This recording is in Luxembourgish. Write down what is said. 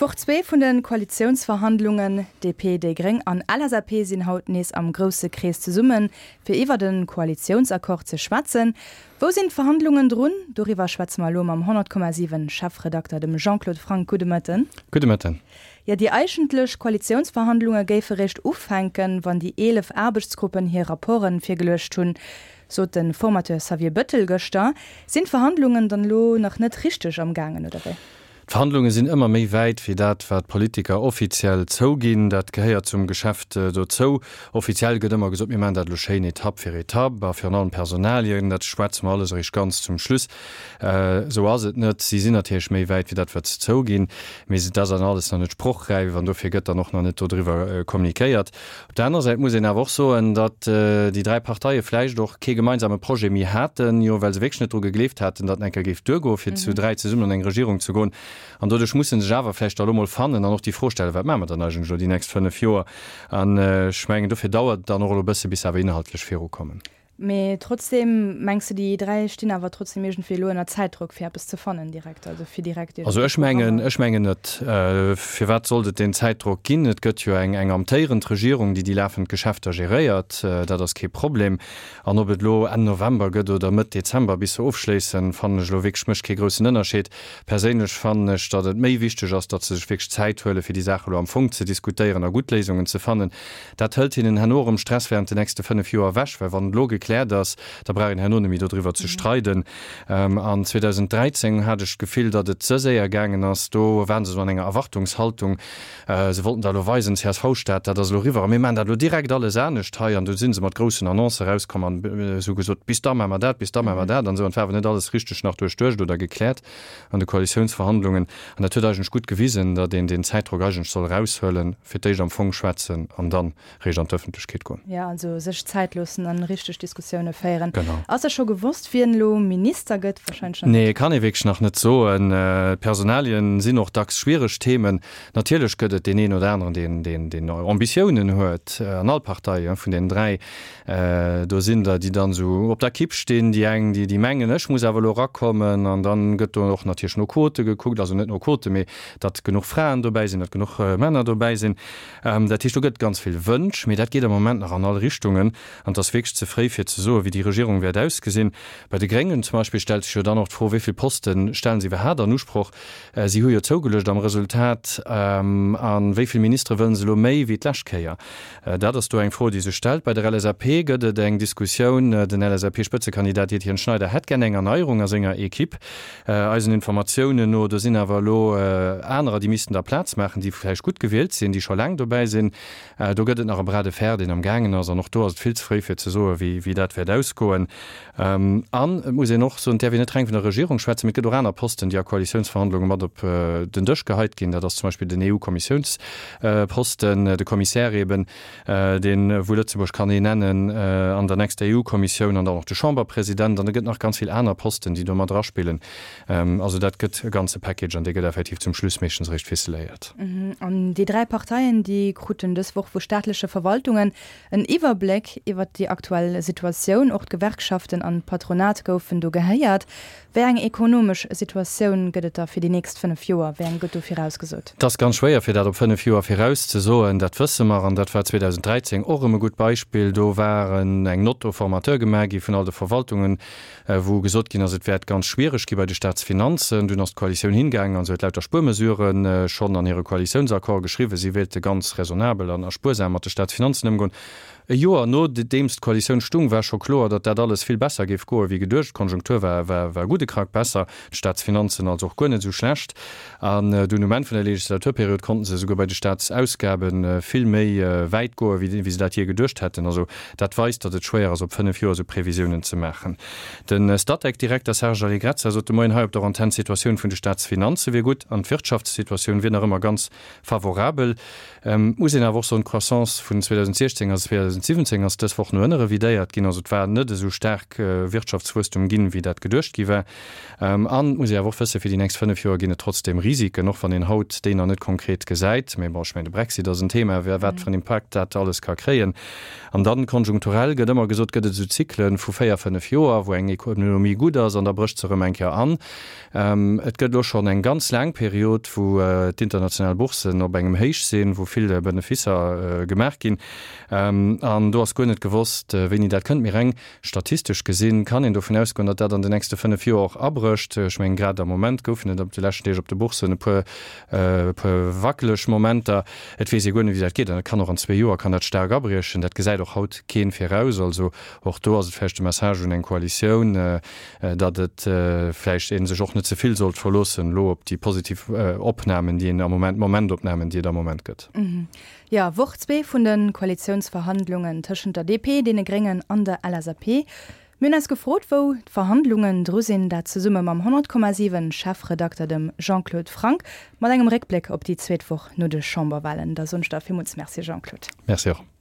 D'Woch 2 vun de Koalitiounsverhandlungen, DP, déi Gréng an LSAP sinn haut nees am grousse Krees zesummen, fir iwwert e Koalitiounsaccord ze schwätzen. Wou sinn d'Verhandlungen drun? Doriwwer schwätze mer elo mam 100,7 Chefredakter, dem Jean-Claude Franck. Gudde Mëtten. Gudde Mëtten. Jo, déi eigentlech Koalitiounsverhandlunge géife réischt ufänken, wann déi 11 Aarbechtsgruppen hir Rapporte virgeluecht hunn, sot de Formateur Xavier Bëttel gëschter. Sinn d'Verhandlungen dann elo nach net richteg am gaangen, oder wéi? D'Verhandlunge sinn ëmmer méi wäit wéi dat, wat d'Politiker offiziell zouginn. Dat gehéiert zum Geschäft dozou. Offiziell gëtt ëmmer gesot, mir maachen dat elo schéin Etapp fir Etapp a virun allem Personalien, dat schwätze mer alles eréischt ganz zum Schluss. Esou ass et net. Si sinn natierlech méi wäit wéi dat, wat se zouginn, mee dat ass dann alles nach net sprochräif an dofir gëtt dann och nach net dodriwwer kommunikéiert. Op der anerer Säit muss een awer och soen, datt déi 3 Parteie vläicht och kee gemeinsame Projet méi haten, jo well se wierklech net dru gegleeft haten, datt en eng Kéier géif duergoen, fir zu 3 zesummen an eng Regierung ze goen. An doduerch musse sech awer vläicht da elo mol fannen an och déi Fro stellen, Wat maache mer dann eigentlech elo déi nächst 5 Joer? An ech mengen, dofir dauert et dann och elo e bësse bis se awer inhaltlech virukommen. Mee trotzdem, mengs de déi 3 stinn awer trotzdem iergendwéi elo ënner Zäitdrock fir eppes ze fannen direkt, also fir direkt iergendwéi Also ech mengen, ech mengen net. Firwat sollt et deen Zäitdrock ginn? Et gëtt jo eng eng amtéierend Regierung, déi déi lafend Geschäfter geréiert. Dat ass kee Problem. An ob et elo Enn November gëtt oder Mëtt Dezember bis se ofschléissen, fannen ech elo wierklech mécht kee groussen Ënnerscheed. Perséinlech fannen ech, datt et méi wichteg ass, datt se sech wierklech Zäit huelen, fir déi Saach elo am Fong ze diskutéieren a gutt Léisungen ze fannen. Dat hëlt hinnen herno erëm Stress während den nächste 5 Joer ewech, well wann et elo gekläert ass, da brauch een herno net méi dodriwwer ze streiden. An 2013 hat ech d'Gefill, datt et ze séier gaangen ass. Do waren se esou an enger Erwartungshaltung, se wollten da elo weisen, CSV-Staat, dat ass elo eriwwer a mir maachen dat elo direkt alles anescht hei. An du si se mat groussen Annoncë erauskomm an se hu gesot, bis da maache mer dat, bis da maache mer dat an esou. An et war awer net alles richteg nach duerchduecht oder gekläert an de Koalitiounsverhandlungen. An dat huet eigentlech gutt gewisen, datt een deen Zäitdrock eigentlech soll eraushuelen, fir d'éischt am Fong schwätzen an dann réischt an d'Ëffentlechkeet goen. Jo, also sech Zäit loossen an richteg Diskussioune féieren. Genau. Ass da scho gewosst, wien elo Minister gëtt? Wahrscheinlech nach net. Nee, kann ee wierklech nach net soen. D'Personalien sinn och dacks schwiereg Themen. Natierlech gëtt et deen een oder aneren, deen, deen, deen Ambitiounen huet, an all Partei vun deenen 3. Do sinn der, déi dann esou op der Kipp stinn, déi eng, déi, déi mengen, ech muss awer elo erakommen. An dann gëtt do och natierlech no Quote gekuckt, also net no Quote, mee datt genuch Fraen dobäi sinn, datt genuch Männer dobäi sinn. Dat heescht, do gëtt ganz vill Wënsch, mee dat geet am Moment nach an all Richtungen. An et ass wierklech ze fréi, fir ze soen, wéi déi Regierung wäert ausgesinn. Bei de Gréngen zum Beispill stellt sech jo dann och d'Fro, wéi vill Poste stellen se iwwerhaapt an Usproch? Si hu jo zougeluecht am Resultat. A wéi vill Ministere wëllen se elo méi wéi d'lescht Kéier? Dat ass do eng Fro, déi sech stellt. Bei der LSAP gëtt et eng Diskussioun. Den LSAP-Spëtzekandidat Etienne Schneider hätt gär eng Erneierung a senger Equipe. Eisen Informatiounen no, do sinn awer elo anerer, déi missten da Plaz maachen, déi vläicht gutt gewielt sinn, déi scho laang dobäi sinn. Do gëtt et nach e Bras de fer, deen am gaangen ass. An och do ass et vill ze fréi, fir ze soen, wéi dat wäert ausgoen. An et muss een och soen, et däerf een net reng vun der Regierung schwätzen, mee et gëtt och aner Posten, déi a Koalitiounsverhandlunge mat op den Dësch geheit ginn. Dat ass zum Beispill den EU-Kommissiounsposten, de Commissaire eben, deen, wou Lëtzebuerg kann een nennen an der nächster EU-Kommissioun, an dann och de Chamberpresident. An et gëtt nach ganz vill aner Posten, déi do mat eraspillen. Also dat gëtt e ganze Package an dee gëtt effektiv zum Schluss meeschtens eréischt ficeléiert. An déi 3 Parteien, déi kruten dës Woch vu staatleche Verwaltungen En Iwwerbléck iwwert déi aktuell Situatioun, och d'Gewerkschaften an d'Patronat goufen do gehéiert. Wéi eng ekonomesch Situatioun gëtt et da fir déi nächst 5 Joer? Wéi eng gëtt do virausgesot? Et ass ganz schwéier fir dat op 5 Joer virauszesoen, dat wësse mer. An dat war 2013 och erëm e gutt Beispill. Do war eng Note au formateur gemaach gi vun all de Verwaltungen, wou gesot ginn ass, et wäert ganz schwiereg gi bei de Staatsfinanzen. Dunn ass d'Koalitioun hingaangen an se huet lauter Spuermesurë schonn an hire Koalitiounsaccord geschriwwen. Si wéilte ganz raisonnabel an a spuersam mat de Staatsfinanzen ëmgoen. E Joer nodeems d'Koalitioun stung, war scho kloer, datt dat alles vill besser géif goe wéi geduecht. D'Konjunktur war war e gudde Krack besser, d'Staatsfinanzen also och guer net esou schlecht. An dunn um Enn vun der Legislaturperiod konnten se esouguer bei de Staatsausgabe vill méi wäit goen, wéi se dat jee geduecht hätten. Also dat weist, datt et schwéier ass, op 5 Joer esou Previsiounen ze maachen. De Statec-Direkter Serge Allegrezza sot de Moien hei op der Antenn, d'Situatioun vun de Staatsfinanze wier gutt an d'Wirtschaftssituatioun wier nach ëmmer ganz favorabel. Et muss een awer och soen, d'Croissance vun 2016 a 2017 ass dës Woch no ënne revidéiert ginn. ginn. Also et war net esou staark Wirtschaftswuesstum ginn, wéi dat geduecht gi war. An et muss ee awer och wëssen, fir déi nächst 5 Joer ginn et trotzdeem Risiken, och wann een haut déi nach net konkret gesäit. Mee bon, ech mengen, de Brexit ass en Thema, wat fir en Impakt dat alles ka kréien. An dann, konjunkturell gëtt ëmmer gesot, gëtt et esou Zyklen vu 4, 5 Joer, wou eng Ekonomie gutt ass an da brécht se erëm eng Kéier an. Et gëtt elo schonn eng ganz laang Period, wou d'international Boursen op engem Héich sinn, wou vill Beneficer gemaach ginn. An do ass guer net gewosst, wéini dat kënnt. Mee reng statistesch gesinn kann een dovun ausgoen, datt dat an den nächste 5 Joer och abrécht. Ech mengen, grad am Moment goufen et op de leschten Deeg op de Boursen e puer, e puer wackeleg Momenter. Et weess ee guer net, wéi dat geet. An et kann och an zwee Joer kann dat staark abriechen. Dat gesäit och haut keen viraus. Also och do ass et vläicht de Message un eng Koalitioun, datt et vläicht ee sech och net ze vill sollt verloossen elo op déi positiv Opnamen, déi een am Moment, Momentopnamen, déi et am Moment gëtt. Jo, Woch zwee vun de Koalitiounsverhandlungen tëschent der DP, deene Gréngen an der LSAP. Mir hunn eis gefrot, wou d'Verhandlungen dru sinn. Dat zesumme mam 100,7 Chefredakter, dem Jean-Claude Franck, mat engem Réckbléck op déi zweet Woch no de Chamberwalen. Da soen ech der villmools Merci, Jean-Claude. Merci och.